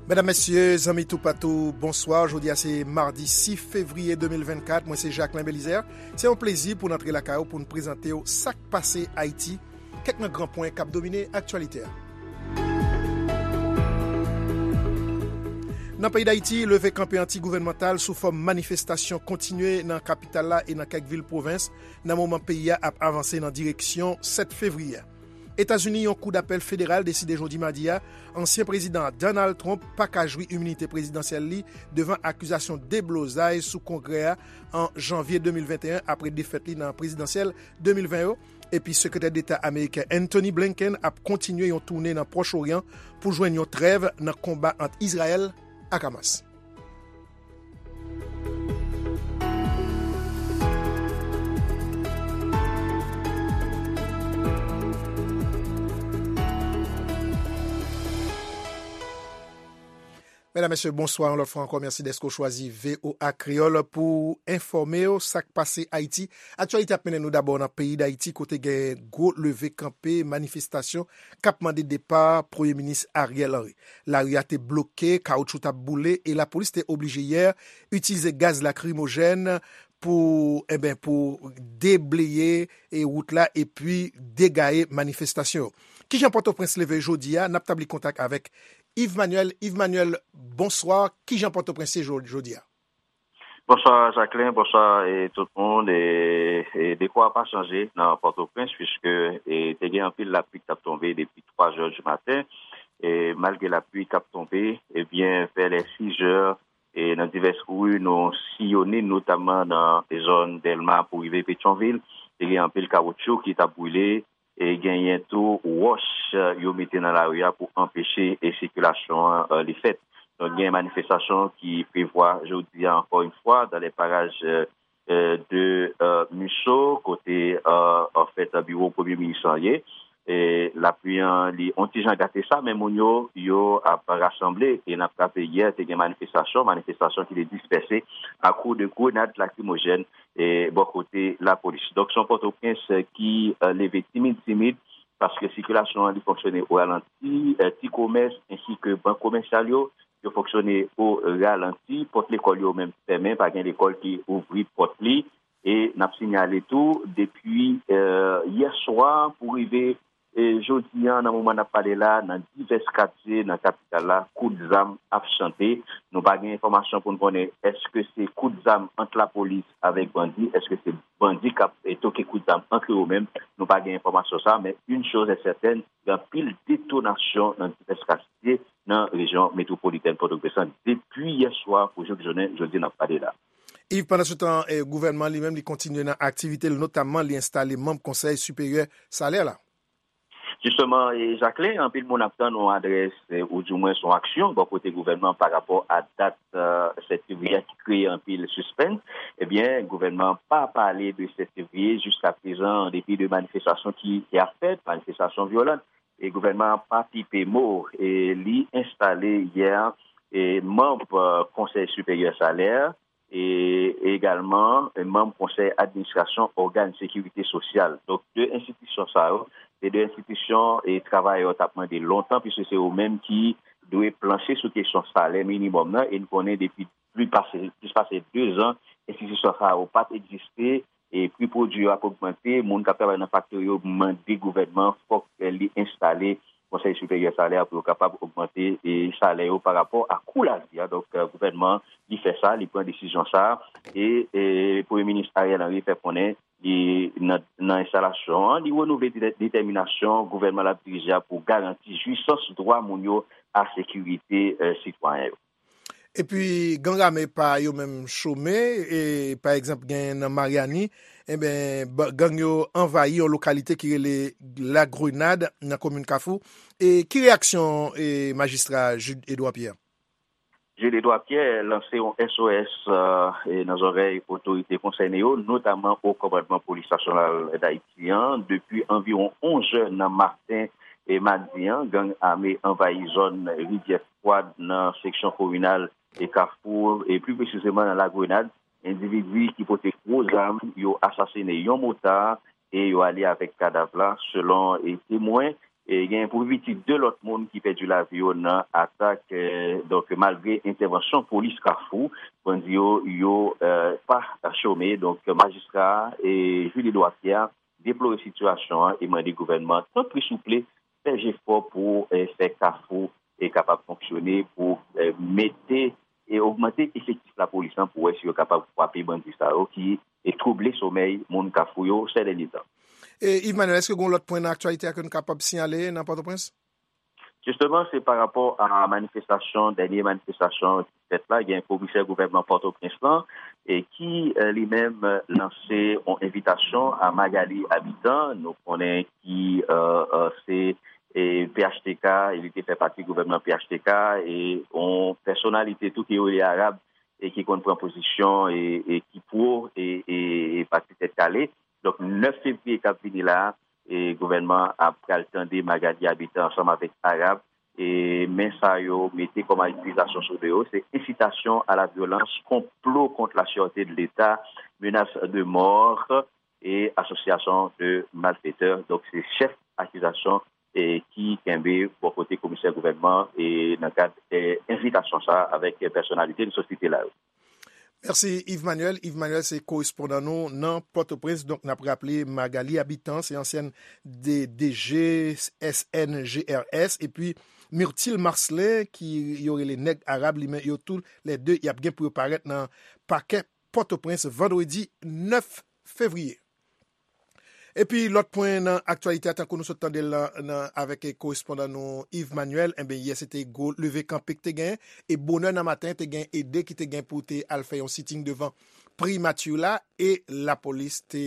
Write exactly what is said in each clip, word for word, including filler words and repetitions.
Medam, mesye, zanmi toupatou, bonswa. Jodi a se madi sis fevriye de mil vennkat. Mwen se Jacquelin Belizaire. Se yon plezi pou n antre lakay ou pou n prezante w sa k pase Ayiti, kèk nan gran pwen k ap domine aktyalite a. Nan peyi Dayiti, leve kanpe anti-gouvènmantal sou fòm manifestasyon kontinye nan kapital la e nan kèk vil pwovens, nan moman peyi a ap avanse nan direksyon sèt fevriye. Etazini, yon kou dapèl federal deside jodi madi a, ansyen prezidan Donald Trump pa ka jwi iminite prezidansyèl li devan akizasyon deblozay sou Kongrè a an janvye de mil venteyen apre defèt li nan prezidansyèl de mil ven yo. Epi Sekretè Deta ameriken Antony Blinken ap kontinye yon toune nan Pwòch Oryan pou jwenn yon trèv nan konba ant Izrayèl ak Hamas. Medam, mesye, bonswa yon lòt fwa ankò. Mèsi dèske w chwazi V O A Kreyòl pou enfòme w sa k pase Ayiti. Aktyalite ap mennen nou dabò nan peyi Dayiti, kote gen gwo leve kanpe, manifestasyon k ap mande depa Premye Minis Ariel Henry. Lari a te bloke, kawoutchou t ap boule e lapolis te oblije yè itilize gaz lakrimojèn pou, enben, pou debleye e wout la epi degaye manifestasyon yo. Kijan Pòtoprens leve jodi a? N ap tabli kontak avèk Yves Manuel. Yves Manuel, bonswa. Kijan Pòtoprens ye jo-, jodi a? Bonswa Jacquelin, bonswa e tout moun. E, e dekò a pa chanje nan Pòtoprens, piske e, te gen anpil lapli k t ap tonbe depi twa zè di maten. E malgre lapli k ap tonbe, ebyen, vè lè sis zè, e nan divès ri nou siyone, notamman nan zòn Dèlma pou rive Petyonvil, te gen anpil kawoutchou ki t ap boule, e genyen tou wòch, e, yo mete nan lari a pou anpeche, e, sikilasyon an, e, li fèt. Donk, gen manifestasyon ki prevwa jodi a, ankò yon fwa, dans les parages, e, e, de, e, Musso, kote, e, anfèt, biwo Premye Minis lan ye. E lapli an, li on ti jan gate sa, men moun yo, yo ap rasanble. E n ap raple, yè, te gen manifestasyon, manifestasyon ki te dispèse a kou de grenad lakrimojèn e bò kote lapolis. Donk, se yon Pòtoprens ki, e, leve timid, timid, paske sikilasyon an, li fonksyone o ralanti, e, ti komès ensi ke bank komèsyal yo, yo fonksyone o ralanti, pòt lekòl yo menm fèmen, pa gen lekòl ki ouvri pòt li. E n ap sinyale tou, depi, e, yè swa pou rive, e, jodi a, nan moman n ap pale la, nan divès katye nan kapital la, kout zam ap chante. Nou pa gen enfòmasyon pou n konnen èske se kout zam ant lapolis avèk bandi, èske se bandi k ap, e, toke kout zam ant yo menm. Nou pa gen enfòmasyon sa, men une chose est certaine, gen anpil detonasyon nan divès katye nan rejyon metwopolitèn Pòtoprens lan depi yè swa pou jouk jounen jodi n ap pale la. Yves, pandansetan, e, gouvènman li menm, li kontinye nan aktivite l, notamman li enstale manm Konsèy Siperyè Salè la. Jisteman, e, Jacquelin, anpil moun ap tann yon adrès, e, oudimwen yon aksyon bò kote gouvènman pa rapò a dat, e, sèt fevriye a ki kreye anpil sispens. Ebyen, gouvènman pa pale de sèt fevriye jiskaprezan, an depi de manifestasyon ki, ki ap fèt, manifestasyon vyolan. E gouvènman an pa pipe mo, e li enstale yè, e manm, e, Konsèy Siperyè Salè, e egalman, e manm Konsèy Administrasyon Ògàn Sekirite Sosyal. Donk, de enstitisyon sa yo, se de enstitisyon e travayè yo t ap mande lontan, piske se yo menm ki dwe planche sou kesyon salè minimòm nan, e n konnen depi plis pase, plis pase de zan, enstitisyon sa yo pa t egziste, e pri pwodui yo ap ogmante, moun k ap travay nan faktori yo mande gouvènman fòk li enstale Konsèy Siperyè Salè a pou yo kapab ogmante, e, salè yo pa rapò a kou lavi a. Donk, e, gouvènman li fè sa, li pran desizyon sa, e, e Premye Minis Ariel Henry fè konnen li nan, nan enstalasyon an, li renouvle dete-, detèminasyon gouvènman l ap dirije a pou garanti jwisans dwa moun yo a sekirite, e, sitwayen yo. Epi, gang ame pa yo menm chome, e, pa egzanp, gen nan Maryani, enben, ba-, gang yo anvayi yon lokalite ki rele La Grenade, nan komin Kafou. E ki reyaksyon, e, majistra Jude Edouard Pierre? Jude Edouard Pierre lanse yon S O S, e, nan zòrèy otorite konsène yo, notamman Wo Kòmandman Polis Nasyonal Dayiti an, depi anviwon onz è nan maten e madi an, gang ame anvayi zòn Rivyè Fwad nan seksyon kominal e Kafou, e pli presizeman nan La Grenade, endividi ki pote gwo zam, yo asasine yon motard e yo ale avèk kadav la, selon e temwen. E gen pou pi piti de lòt moun ki pèdi lavi yo nan atak. Eh, donk, malgre entèvansyon polis Kafou, bandi yo, yo eh, pa chome. Donk, majistra e Julie Edouard Pierre deplore sitiyasyon an e mande gouvènman, tanpri souple, fè jefò pou eh, fè Kafou e kapab fonksyone, pou eh, mete e ogmante efektif lapolis lan pou wè si yo kapab kwape bandi sa yo ki e twouble somèy moun Kafou yo sè dènye tan. E, Yves Manuel, èske gen lòt pwen nan aktyalite a ke nou kapab siyale nan Pòtoprens? Jisteman, se pa rapò a manifestasyon, dènye manifestasyon ki fèt la, gen komisè gouvènman Pòtoprens lan, e ki eh, li menm eh, lanse yon envitasyon a Magali Habitant. Nou konnen ki eh, eh, se e P H T K, e li te fè pati gouvènman P H T K, e yon pèsonalite tou ki rele Arab, e ki konn pran pozisyon, e, e ki pwo, e, e, e pati Tèt Kale. Donk, nèf fevriye k ap vini la, e gouvènman ap pral tande Magali Habitant ansanm avèk Arab, e men sa yo mete kòm akizasyon sou do yo, se incitation à la violence, complot contre la sûreté de l'État, menace de mort, e association de malfaiteurs. Donk, se chèf akizasyon e ki kenbe bò kote komisè gouvènman e nan kad eh, envitasyon sa a avèk pèsonalite nou sot site la yo. Mèsi, Yves Manuel. Yves Manuel se korespondan nou nan Pòtoprens. Donk, n ap raple, Magali Habitant se ansyèn de D G S N G R S, epi Myrtil Marcelin, ki yo rele Nèg Arab, li men yo tou lè de, y ap gen pou yo parèt nan pakè Pòtoprens vandredi nèf fevriye. Epi lòt pwen nan aktyalite a, tankou nou sot tande l nan, nan, avèk korespondan nou Yves Manuel, enben, yè se te gwo leve kanpe ki te gen, e bonè nan maten te gen ede ki te gen pou te al fè yon sitting devan primati la, e lapolis te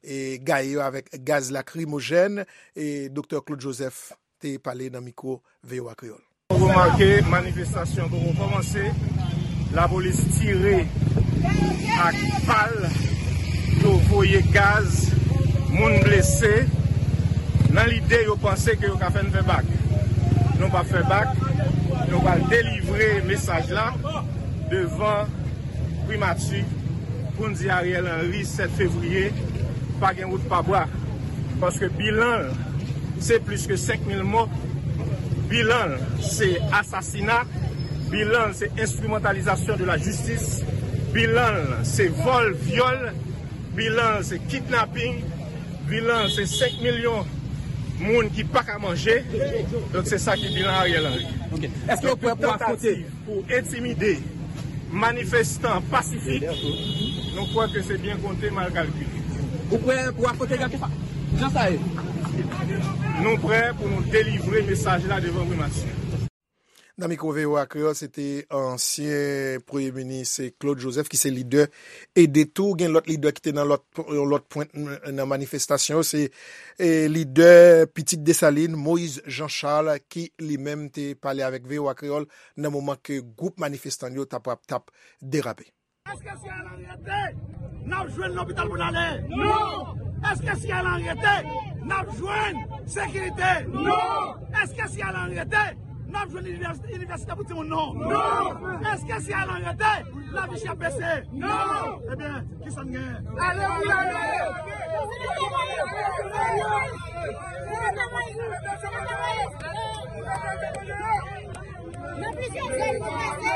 e, gaye yo avèk gaz lakrimojèn, e Doktè Claude Joseph te pale nan mikwo V O A Kreyòl. Remake, manifestasyon poko kòmanse, lapolis tire ak bal, yo voye gaz, moun blese, nan lide yo panse ke yo ka fè n fè bak. Nou p ap fè bak, nou pral delivre mesaj la devan primati pou n di Ariel Henry sèt fevriye, pa gen wout pa bwa. Paske bilan l, se plis ke senk mil mò. Bilan l, se asasina. Bilan l, se enstrimantalizasyon de la jistis. Bilan l, se vòl, vyòl. Bilan l, se kidnaping. Bilan l, se senk milyon moun ki pa ka manje. Donk, se sa ki bilan Ariel Henry. Ok. Èske w prè pou afwonte? Pou entimide manifestan pasifik, nou kwè ke se byen konte, mal kalkile. Ou prè pou afwonte Gad Koufa? Jan sa ye. Nou prè pou nou delivre mesaj la devan primati. Nan mikwo V O A Kreyòl, se te ansyen premye minis Claude Joseph ki se lidè ede tou. Gen lòt lidè ki te nan lòt, yon lòt pwent nan manifestasyon yo. Se e, lidè Pitit Desalin, Moïse Jean Charles, ki li menm te pale avèk V O A Kreyòl nan moman ke gwoup manifestan yo t ap, t ap derape. Èske si Ariel Henry rete, n ap jwenn lopital pou n ale? Non! Èske si Ariel Henry rete, n ap jwenn sekirite? Non! Èske si Ariel Henry rete, n ap jwenn inivès-, inivèsite pou timoun nou? Non! Èske si Ariel Henry rete, lavi chè ap bese? Non! Ebyen, kisa n genyen? Ale pou n ale! Nan plizyè zòn nou pase.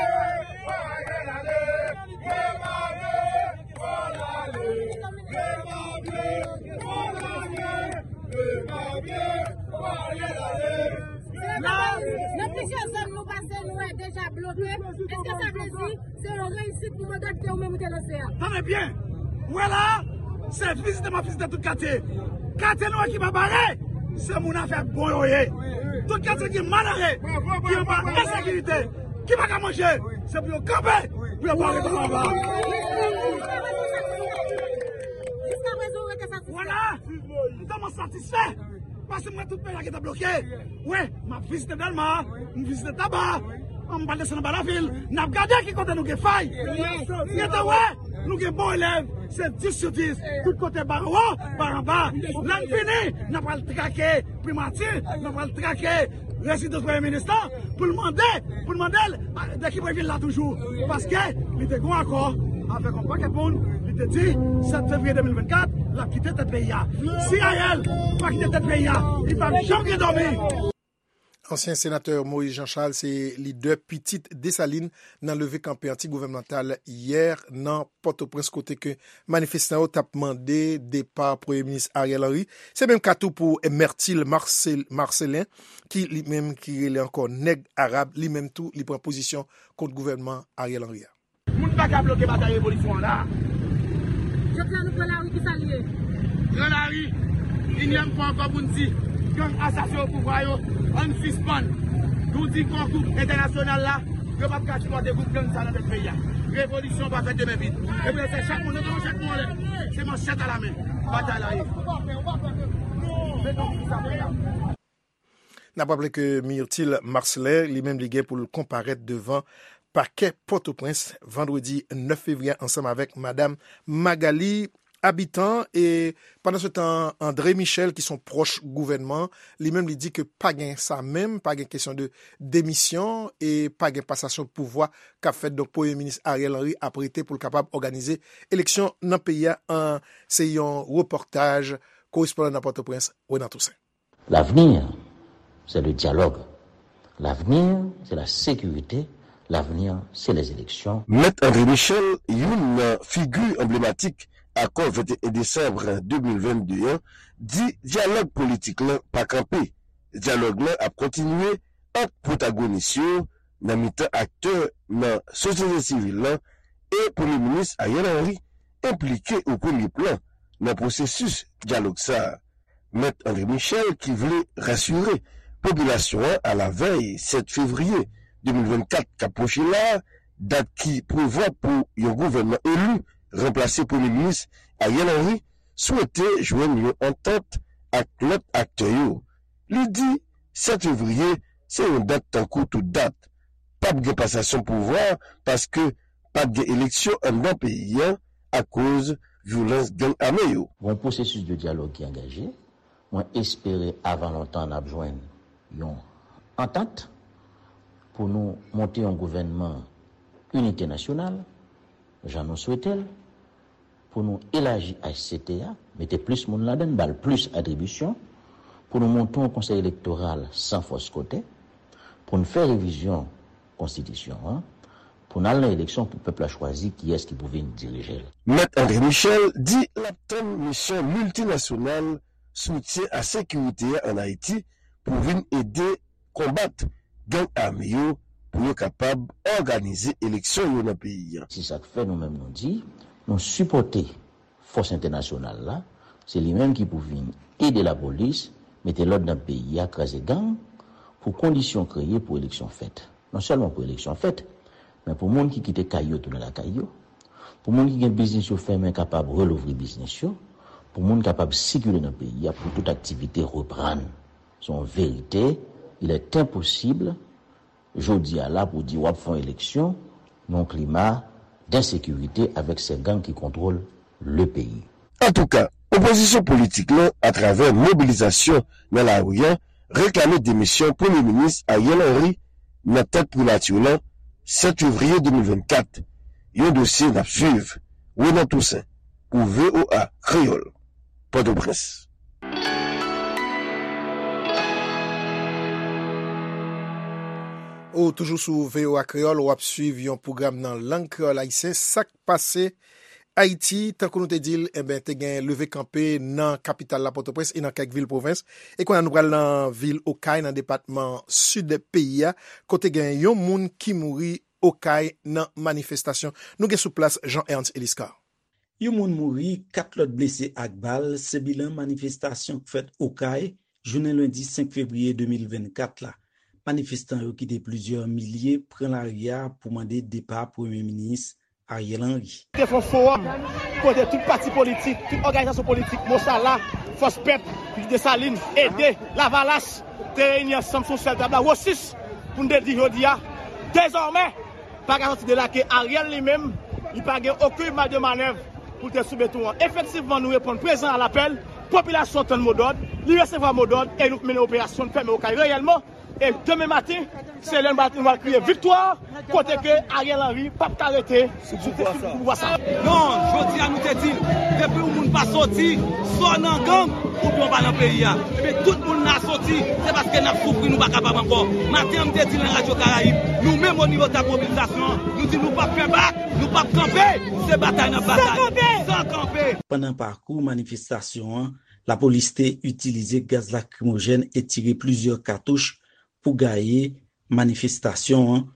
Nan, nan plizyè zòn nou pase, nou wè deja bloke. Èske sa vle di se yon reyisit pou manda ke ou menm ou te lanse a? Tande byen! Ou wè la a, se vizite m ap vizite tout katye. Katye nou wè ki pa bare, se moun afè bon yo ye. Tout katye ki malere, ki anba ensekirite, ki pa ka manje, se pou yo kanpe, pou yo pa rete anba. Jiskaprezan, ou rete satisfè? Vwala! M tèlman satisfè, paske m wè tout peyi a gentan bloke. Wi, m ap vizite Dèlma, m vizite Taba, m pral desann anba lavil, n ap gade ki kote nou gen fay. Gentan wè, nou gen bon elèv, se dis sou dis, tout kote, ba anwo, ba anba. Lè n fini, n ap al trake primati, n ap al trake rezidans premye minis la, pou l mande, pou l mande l, a, de ki bò l vin la toujou. Paske li te gen yon akò avèk yon pakèt moun, li Te di, sèt fevriye de mil vennkat, l ap kite tèt peyi a. Si Ariel pa kite tèt peyi a, li p ap janm gen dòmi. Ansyen senatè Moïse Jean Charles se lidè pitit Desalin nan leve kanpe anti-gouvènmantal yè nan Pòtoprens, kote ke manifestan yo t ap mande depa Premye Minis Ariel Henry. Se menm ka tou pou Myrtil Marcel, Marcelin, ki li menm ki rele ankò Nèg Arab, li menm tou li pran pozisyon kont gouvènman Ariel Henry a. Moun pa ka bloke batay revolisyon an la. Jodi a nou pran lari, ki sa l ye? Pran lari, inyèm fwa ankò pou n di, gang asasen yo pouvwa yo, ann sispann. Nou di kò gwoup entènasyonal la, yo p ap ka sipòte gwoup gang sa nan tèt peyi a. Revolisyon pa fèt de men vid. E pou yo fè chak moun, nou pran chak moun anlè. Se manchèt alamen. Batay la ye. N ap raple ke Myrtil Marcelin, li menm, li gen pou l konparèt devan pakè Pòtoprens vandredi nèf fevriye a ansanm avèk madanm Magalie Habitant. E pandan se tan, André Michel, ki se yon pwòch gouvènman, li menm, li di ke pa gen sa menm, pa gen kesyon de demisyon e pa gen pasasyon pouvwa k ap fèt. Donk, Premye Minis Ariel Henry ap rete pou l kapab òganize eleksyon nan peyi a. An, se yon repòtaj korespondan nan Pòtoprens, Renan Toussaint. L'avenir, c'est le dialogue. L'avenir, c'est la sécurité. L'avenir, c'est les élections. Mèt André Michel, youn nan figi anblematik akò venteyen desanm de mil vennde an, di dyalòg politik lan pa kanpe. Dyalòg lan ap kontinye ant pwotagonis yo nan mitan aktè nan sosyete sivil lan e Premye Minis Ariel Henry enplike o premye plan nan pwosesis dyalòg sa a. Mèt André Michel, ki vle rasire popilasyon an alavèy sèt fevriye de mil vennkat k ap pwoche la a, dat ki prevwa pou yon gouvènman eli ranplase Premye Minis Ariel Henry, swete jwenn yon antant ak lòt aktè yo. Li di sèt fevriye se yon dat tankou tout dat. P ap gen pasasyon pouvwa paske p ap gen eleksyon anndan peyi a akoz vyolans gang ame yo. Gon pwosesis de dyalòg ki angaje. Mwen espere avan lontan n ap jwenn yon antant pou nou monte yon gouvènman inite nasyonal, jan nou swete l, pou nou elaji H C T a, mete plis moun ladan l, ba l plis atribisyon, pou nou monte yon konsèy elektoral san fòs kote, pou n fè revizyon konstitisyon an, pou n al nan eleksyon pou pèp la chwazi kiyès ki pou vin dirije l. Mèt André Michel di l ap tann misyon miltinasyonal soutyen a sekirite a ann Ayiti pou vin ede konbat gang ame yo pou yo kapab òganize eleksyon yo nan peyi a. Se sa k fè nou menm nou di, nou sipòte fòs entènasyonal la, se li menm ki pou vin ede lapolis mete lòd nan peyi a, kraze gang, pou kondisyon kreye pou eleksyon fèt. Non sèlman pou eleksyon fèt, men pou moun ki kite kay yo tounen lakay yo, pou moun ki gen biznis yo fèmen kapab relouvri biznis yo, pou moun kapab sikile nan peyi a, pou tout aktivite reprann. Se yon verite, il est impossible jodi a la pou di w ap fè yon eleksyon nan yon klima densekirite avèk se gang ki kontwole le peyi. Antouka, opozisyon politik lan, atravè mobilizasyon nan lari a, reklame demisyon Premye Minis Ariel Henry nan tèt primati lan sèt fevriye de mil vennkat. Yon dosye n ap swiv. Renan Toussaint, pou V O A Kreyòl, Pòtoprens. Ou toujou sou V O A Kreyòl, w ap swiv yon pwogram nan lang kreyòl ayisyen, Sa k pase Ayiti. Tankou nou te di l, enben, te gen leve kanpe nan kapital la, Pòtoprens, e nan kèk vil pwovens. E kounye a, nou pral nan vil Okay, nan depatman Sid peyi a, kote gen yon moun ki mouri Okay nan manifestasyon. Nou gen sou plas Jean Ernst Eliscar. Yon moun mouri, kat lòt blese ak bal, se bilan manifestasyon k fèt Okay, jounen lendi senk fevriye de mil vennkat la. Manifestan yo ki te plizyè milye pran lari a pou mande depa Premye Minis Ariel Henry. Te fè yon fowòm kote tout pati politik, tout òganizasyon politik, Mosala, Fòs Pèp, Desalin, Ede, Lavalas, te reyini ansanm sou yon sèl tab la, Wosis, pou n te di jodi a, dezòmè, pa ka sòti de la ke Ariel li menm, li pa gen okenn maj de manèv pou l te sou beton an. Efektivman, nou reponn prezan a lapèl, popilasyon tann modòd, Li resevwa modòd e nou mennen operasyon, nou fèmen Okay reyèlman. E demen maten, se lè nou va, nou va kriye viktwa, kote ke Ariel Henry p ap ka rete sou pouvwa sa. Non, jodi a nou te di l, depi yon moun pa soti, swa w nan gang, oubyen w pa nan peyi a. Ebyen, tout moun la soti, se paske n ap soufri, nou pa kapab ankò. Maten an, m te di l nan Radyo Karayib, nou menm o nivo tab mobilizasyon an, nou di nou p ap fè bak, nou p ap kanpe, se batay n ap batay. San kanpe! San kanpe! Pandan pakou manifestasyon an, lapolis te itilize gaz lakrimojèn e tire plizyè katouch pou gaye manifestasyon an,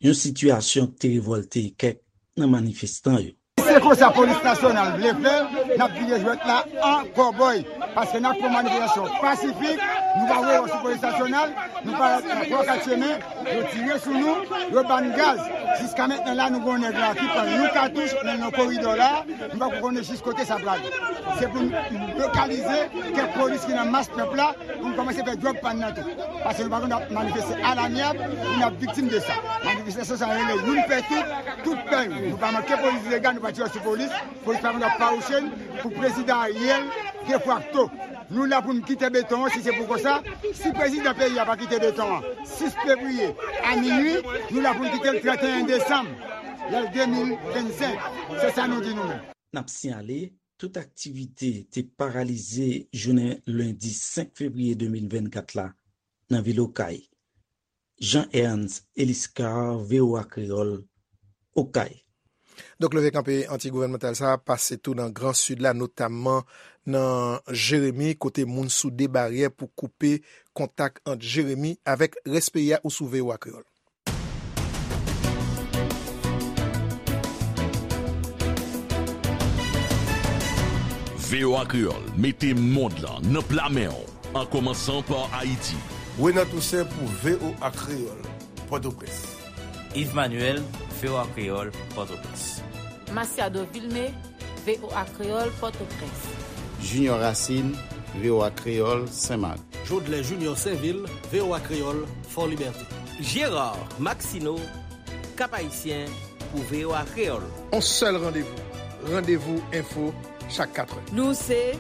yon sitiyasyon k te revòlte kèk nan manifestan yo. Se konsa polis nasyonal vle fè, n ap vire jwèt la an kòbòy. Paske n ap fè yon manifestasyon pasifik, nou pa voye w sou polis nasyonal, nou pa pran kat chemen, yo tire sou nou, yo ba n gaz. Jiska mentnan la, nou gen yon nèg la ki pran yon katouch, men nan koridò la, nou pa ko konnen jis kote sa prale. Se pou n lokalize kèk polis ki nan mas pèp la, pou n kòmanse fè djòb pa n nan tou. Paske nou pa konn ap manifeste alanyab pou n ap viktim de sa. Manifestasyon sa rele youn pè tout, tout pè youn. Nou pa manke polis ilegal, nou pa tire sou polis. Polis pa konn ap fawouche n pou prezidan Ariel defakto. Nou la pou n kite beton an, si se pou konsa, si prezidan peyi a pa kite beton an sis fevriye a minui, nou la pou n kite l trannteyen desanm, lè l de mil vennsenk. Se sa nou di nou menm. N ap siyale, tout aktivite te paralize jounen lendi senk fevriye de mil vennkat la nan vil Okay. Jean Ernst Eliscar, V O A Kreyòl, Okay. Donk, leve kanpe anti-gouvènmantal sa a pase tou nan Gran Sid la, notamman nan Jeremi, kote moun soude baryè pou koupe kontak ant Jeremi avèk rès peyi a. Ou sou V O A Kreyòl. V O A Kreyòl mete mond lan nan pla men w, an kòmansan pa Ayiti. Renan Toussaint pou V O A Kreyòl, Pòtoprens. Yves Manuel, V O A Kreyòl, Pòtoprens. Masiado Vilmé, V O A Kreyòl, Pòtoprens. Junior Racine, V O A Kreyòl, Senmak. Jodlè Junior Sainvil, V O A Kreyòl, Fò Libète. Gérard Maxineau, Cap-Haïtien, pou V O A Kreyòl. On sèl randevou, Randevou Enfo, chak katrè. Nou se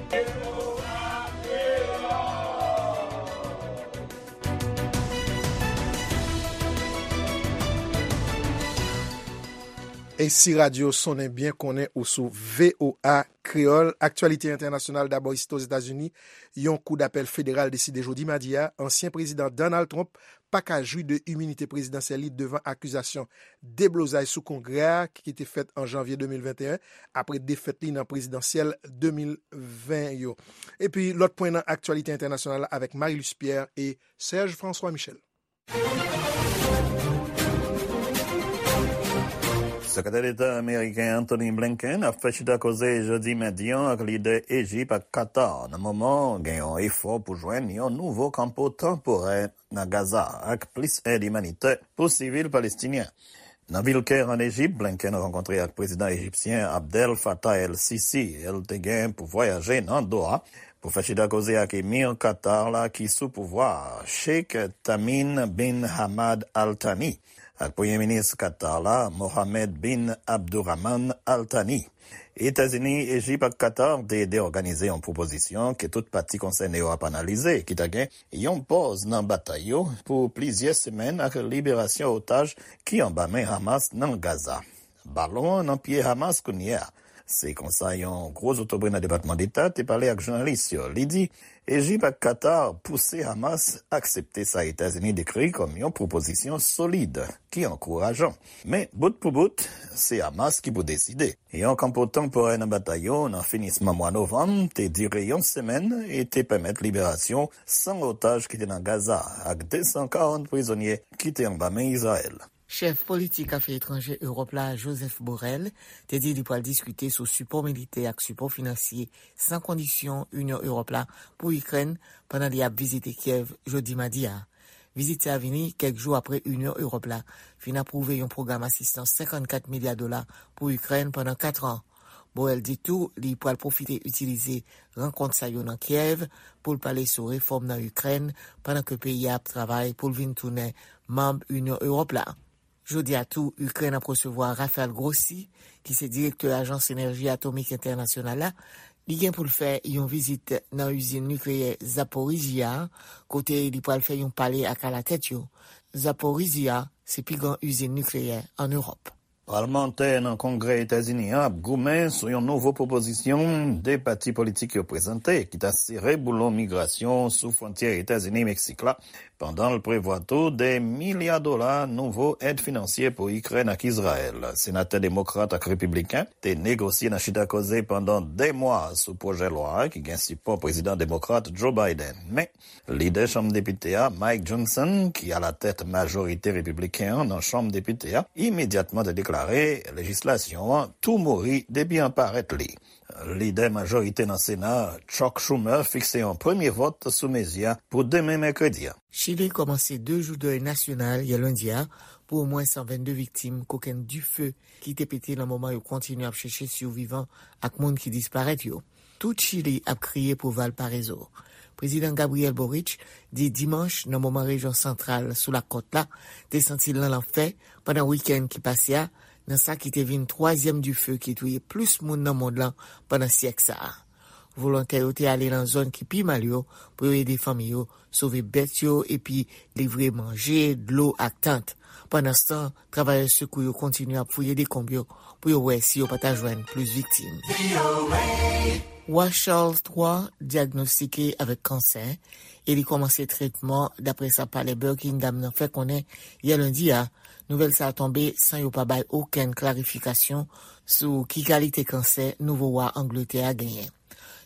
E si radyo sonnen byen, konnen ou sou V O A Kreyòl. Aktyalite entènasyonal, dabò isit Ozetazini, yon kou dapèl federal deside jodi madi a, ansyen prezidan Donald Trump pa ka jwi de iminite prezidansyèl li devan akizasyon deblozay sou Kongrè a ki te fèt an janvye de mil venteyen, apre defèt li nan prezidansyèl de mil ven yo. Epi lòt pwen nan aktyalite entènasyonal la avèk Marie-Luce Pierre e Serge François Michel. Sekretè Deta ameriken Antony Blinken ap fè chita koze jodi madi an ak lidè Ejip ak Katar nan moman gen yon efò pou jwenn yon nouvo kanpo tanporè nan Gaza ak plis èd imanitè pou sivil palestinyen. Nan vil Kè, an Ejip, Blinken rankontre ak prezidan ejipsyen Abdel Fattah el-Sisi. El te gen pou vwayaje nan Doha pou fè chita koze ak emir Katar la ki sou pouvwa a, Sheikh Tamim bin Hamad Al Thani, ak premye minis Katar la, Mohammed bin Abdurrahman Al Thani. Etazini, Ejip ak Katar te ede òganize yon pwopozisyon ke tout pati konsène yo ap analize, ki ta gen yon pòz nan batay yo pou plizyè semèn ak liberasyon otaj ki anba men Hamas nan Gaza. Balon an nan pye Hamas kounye a. Se konsa yon gwo zotobre nan Depatman Deta te pale ak jounalis yo. Li di Ejip ak Katar pouse Hamas aksepte sa Etazini dekri kòm yon pwopozisyon solid ki ankourajan. Men, bout pou bout, se Hamas ki pou deside. Yon kanpo tanporè nan batay yo nan finisman mwa novanm te dire yon semèn e te pèmèt liberasyon san otaj ki te nan Gaza ak de san karant prizonye ki te anba men Izrayèl. Chèf politik afè etranje Ewòp la, Joseph Borrell, te di li pral diskite sou sipò militè ak sipò finansye san kondisyon Inyon Ewòp la pou Ikrèn pandan li ap vizite Kyèv jodi madi a. Vizit sa vini kèk jou apre Inyon Ewòp la fin apwouve yon pwogram asistans senkannkat milya dola pou Ikrèn pandan kat an. Borrell di tou li pral pwofite itilize rankont sa yo nan Kyèv pou l pale sou refòm nan Ikrèn pandan ke peyi a ap travay pou l vin tounen manm Inyon Ewòp la. Jodi a tou, Ikrèn ap resevwa Rafael Grossi, ki se direktè Ajans Enèji Atomik Entènasyonal la, Li gen pou l fè yon vizit nan izin nikleyè Zaporizhzhia, kote li pral fè yon pale ak alatèt yo. Zaporizhzhia se pi gran izin nikleyè ann Ewòp. Palmantè nan Kongrè Etazini an ap goumen sou yon nouvo pwopozisyon de pati politik yo prezante ki ta sere boulon migrasyon sou fwontyè Etazini-Meksik la, pandan l prevwa tou de milya dola nouvo èd finansye pou Ikrèn ak Izrayèl. Senatè demokrat ak repibliken te negosye nan chita koze pandan de mwa sou pwojè lwa a ki gen sipò prezidan demokrat Joe Biden. Men, lidè Chanm Depite a, Mike Johnson, ki alatèt majorite repibliken an nan Chanm Depite a, imedyatman te deklare lejislasyon an tou mouri depi an parèt li. Lidè majorite nan Sena a, Chuck Schumer, fikse yon premye vòt sou mezi a pou demen mèkredi a. Chili kòmanse de jou dèy nasyonal yè lendi a pou omwen san vennde viktim kokenn dife ki te pete nan moman yo kontinye ap chèche sivivan ak moun ki disparèt yo. Tout Chili ap kriye pou Valparaiso. Prezidan Gabriel Boric di dimanch nan moman rejyon santral sou lakòt la te santi l nan lanfè pandan wikenn ki pase a, nan sa ki te vin twazyèm dife ki touye plis moun nan mond lan pandan syèk sa a. Volontè yo te ale nan zòn ki pi mal yo pou yo ede fanmi yo sove bèt yo epi livre manje, dlo ak tant. Pandanstan, travayè sekou yo kontinye ap fouye dekonb yo pou yo wè si yo pa ta jwenn plis viktim. Wa Charles twa dyagnostike avèk kansè e li kòmanse tretman, dapre sa palè Buckingham nan fè konnen yè lendi a. Nouvèl sa a tonbe san yo pa bay okenn klarifikasyon sou ki kalite kansè nouvo wa Angletè a genyen.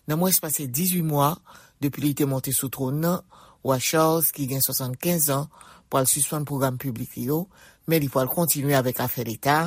Nan mwens pase dizuit mwa depi li te monte sou twòn nan, wa Charles, ki gen swasannkenz an, pral sispann pwogram piblik li yo, men li pral kontinye avèk afè leta.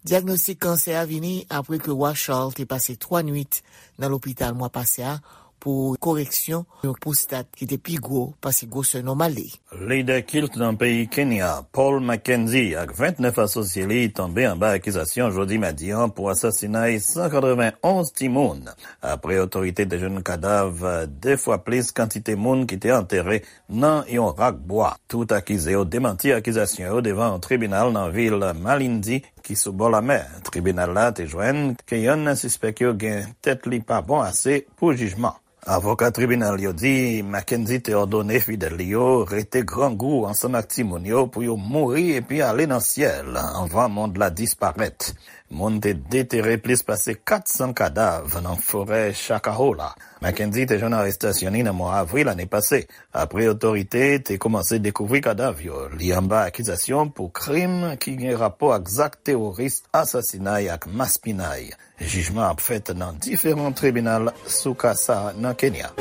Dyagnostik kansè a vini apre ke wa Charles te pase twa nwit nan lopital mwa pase a pou koreksyon yon pwostat ki te pi gwo pase gwosè nòmal li. Lidè kilt nan peyi Kenya, Paul Mackenzie, ak vennèf asosye li tonbe anba akizasyon jodi madi an pou asasinay san katrevenonz timoun, apre otorite te jwenn kadav de fwa plis kantite moun ki te antere nan yon rak bwa. Tout akize yo demanti akizasyon yo devan yon tribinal nan vil Malindi, ki sou bò lamè. Tribinal la te jwenn ke yonn nan sispèk yo gen tèt li pa bon ase pou jijman. Avoka tribinal yo di Mackenzie te òdone fidèl li yo rete grangou ansanm ak timoun yo pou yo mouri epi ale nan syèl anvan mond la disparèt. Moun te detere plis pase kat san kadav nan forè Chakahola. Mackenzie te jwenn arestasyon li nan mwa avril ane pase, apre otorite te kòmanse dekouvri kadav yo. Li anba akizasyon pou krim ki gen rapò ak zak teworis, asasinay ak maspinay. Jijman ap fèt nan diferan tribinal sou ka sa a nan Kenya.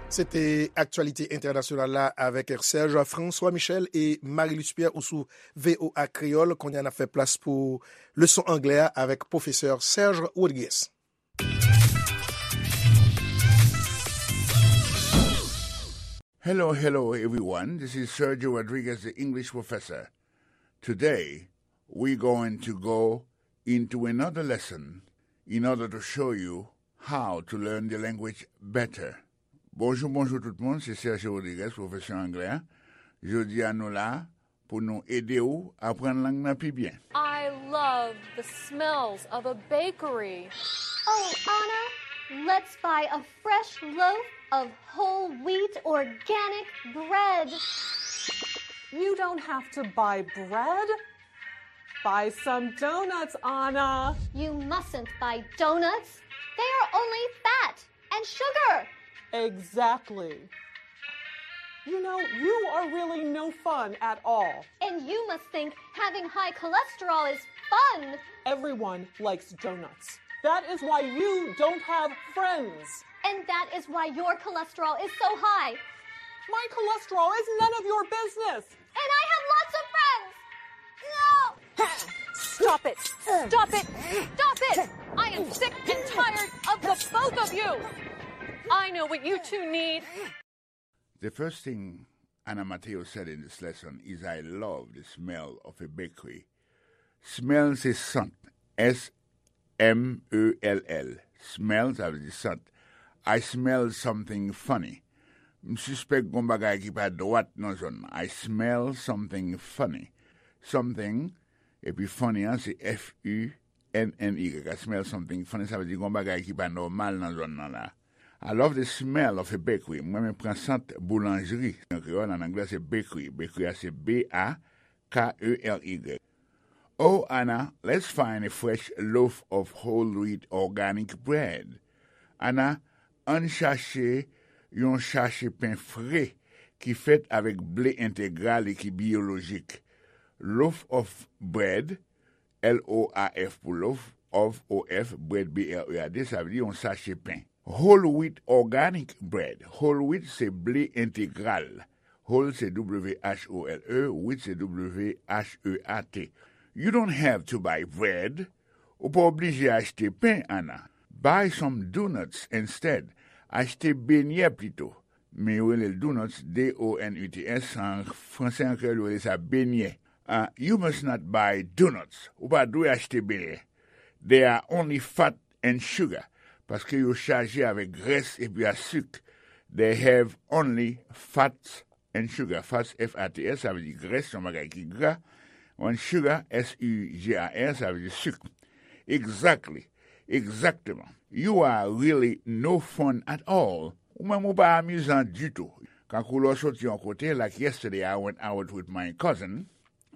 Se te aktyalite entènasyonal la avèk Serge François Michel e Marie-Luce Pierre ou sou V O A Kreyòl. Kounye a n ap fè plas pou leson anglè a avèk pwofesè Serge Rodriguez. Hello, hello, everyone. This is Sergio Rodriguez, the English professor. Today, we're going to go into another lesson in order to show you how to learn the language better. Bonjou, bonjou tout moun, se Sergio Rodriguez, pwofesè anglè a. Jodi a nou la pou nou ede w aprann lang nan pi byen. I love the smells of a bakery. Oh, Anna, let's buy a fresh loaf of whole wheat organic bread. You don't have to buy bread. Buy some donuts, Anna. You mustn't buy donuts. They are only fat and sugar. Exactly. You know, you are really no fun at all. And you must think having high cholesterol is fun. Everyone likes donuts. That is why you don't have friends. And that is why your cholesterol is so high. My cholesterol is none of your business. And I have lots of friends. No! Stop it! Stop it! Stop it! I am sick and tired of the both of you! I know what you two need. The first thing Anna Mateo said in this lesson is, "I love the smell of a bakery." Smell se sant. S M E L L. Smell, sa vle di sant. I smell something funny. M sispèk gon bagay ki pa dwat nan zòn nan. I smell something funny. Something, epi funny an se F U N N Y, I smell something funny, sa vle di gon bagay ki pa nòmal nan zòn nan la. I love the smell of a bakery. Mwen renmen pran sant boulanjri. An kreyòl, an anglè, se bakery. Bakery a se B A K E R Y. Oh, Anna, let's find a fresh loaf of whole wheat organic bread. Anna, ann chache yon chache pen fre ki fèt avèk ble entegral e ki biyolojik. Loaf of bread, L O A F pou loaf, of, O F, bread, B R E A D, sa vle di yon sache pen. Whole wheat organic bread. Whole wheat se ble entegral. Whole se W H O L E, wheat se W H E A T. You don't have to buy bread. Ou pa oblije achte pen, Anna. Buy some donuts instead. Achte benyè pito. Men yo rele l donuts, D O N U T S, an franse, an kreyòl, yo rele sa benyè. Ah, you must not buy donuts. Ou pa dwe achte benyè. They are only fat and sugar. Paske yo chaje avèk grès epi a sik. They have only fats and sugar. Fats, F A T S, sa vle di grès, yon bagay ki gra. And sugar, S U G A R, sa vle di sik. Exactly. Egzakteman. You are really no fun at all. Ou menm ou pa amizan ditou. Kankou lè w soti yon kote, like yesterday I went out with my cousin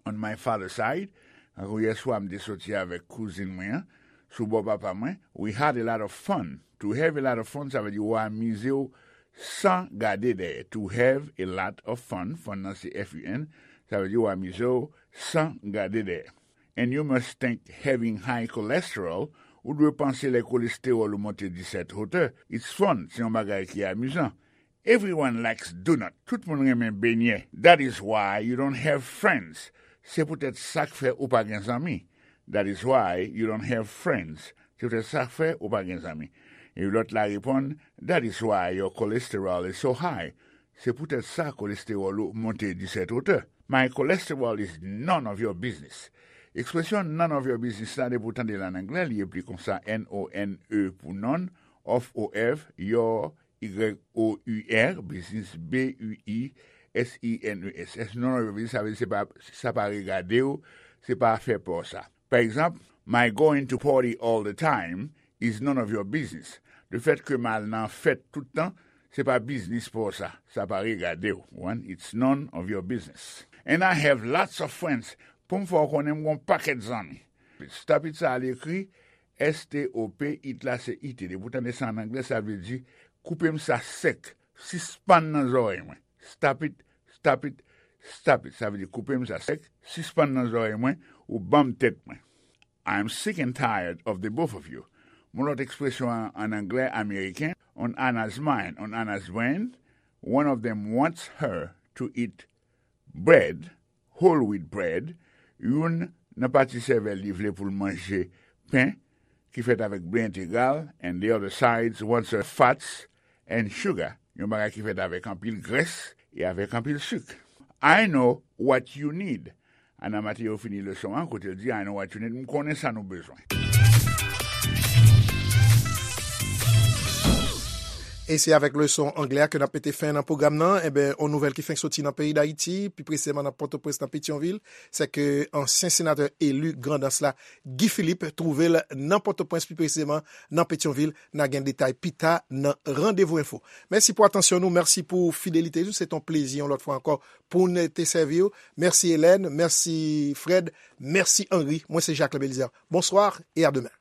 on my father's side. Kankou yèswa m te soti avèk kouzin mwen an, sou bò papa mwen. We had a lot of fun. To have a lot of fun, sa vle di ou amize w san gade dèyè. To have a lot of fun, fun nan se F U N, sa vle di ou amize w san gade dèyè. And you must think having high cholesterol, ou dwe panse lè kolestewòl ou monte disèt wotè, it's fun, se yon bagay ki amizan. Everyone likes donut, tout moun renmen benyè. That is why you don't have friends. Se poutèt sa k fè ou pa gen zanmi. That is why you don't have friends. Se poutèt sa k fè ou pa gen zanmi. E lòt la reponn, that is why your cholesterol is so high. Se poutèt sa kolestewòl ou monte disèt wotè. My cholesterol is none of your business. Ekspresyon none of your business la, depi w tande l an anglè, li ekri konsa, N O N E pou none, of, O F, your, Y O U R, business, B U I S I N E S S. None of your business, sa vle di se pa, sa pa regade w, se pa afè pa w sa. Pa egzanp, my going to party all the time is none of your business. Lefèt ke m al nan fèt tout tan, se pa biznis pa w sa. Sa pa regade w. One, it's none of your business. And I have lots of friends. Pou m fè w konnen m gon pakèt zanmi. Stop it sa al ekri, S T O P, it la se I T. Depi w tande sa an anglè, sa vle di koupe m sa sèk. Sispann nan zòrèy mwen. Stop it, stop it, stop it. Sa vle di koupe m sa sèk, sispann nan zòrèy mwen, ou ban m tèt mwen. I'm sick and tired of the both of you. Yon lòt ekspresyon an, an anglè ameriken, on Anna's mind, on Anna's brain, one of them wants her to eat bread, whole wheat bread, youn nan pati sèvèl li vle pou l manje pen ki fèt avèk ble entegral, and the other side wants her fats and sugar, yon bagay ki fèt avèk anpil grès e avèk anpil sik. I know what you need. Anna Mateo fini leson an kote l di, I know what you need. M konnen sa nou bezwen. E se avèk leson anglè a ke n ap mete fen nan pwogram nan. Enben, yon nouvèl ki fenk soti nan peyi Dayiti, pi presizeman nan Pòtoprens, nan Petyonvil, se ke ansyen senatè eli Grandans la, Guy Philippe, twouve l nan Pòtoprens, pi presizeman nan Petyonvil. N a gen detay pita nan Randevou Enfo. Mèsi pou atansyon nou, mèsi pou fidelite nou. Se t on plezi, yon lòt fwa ankò, pou n te sèvi w. Mèsi Hélène, mèsi Fred, mèsi Henri. Mwen se Jacques Belizaire. Bonsoir et à demain.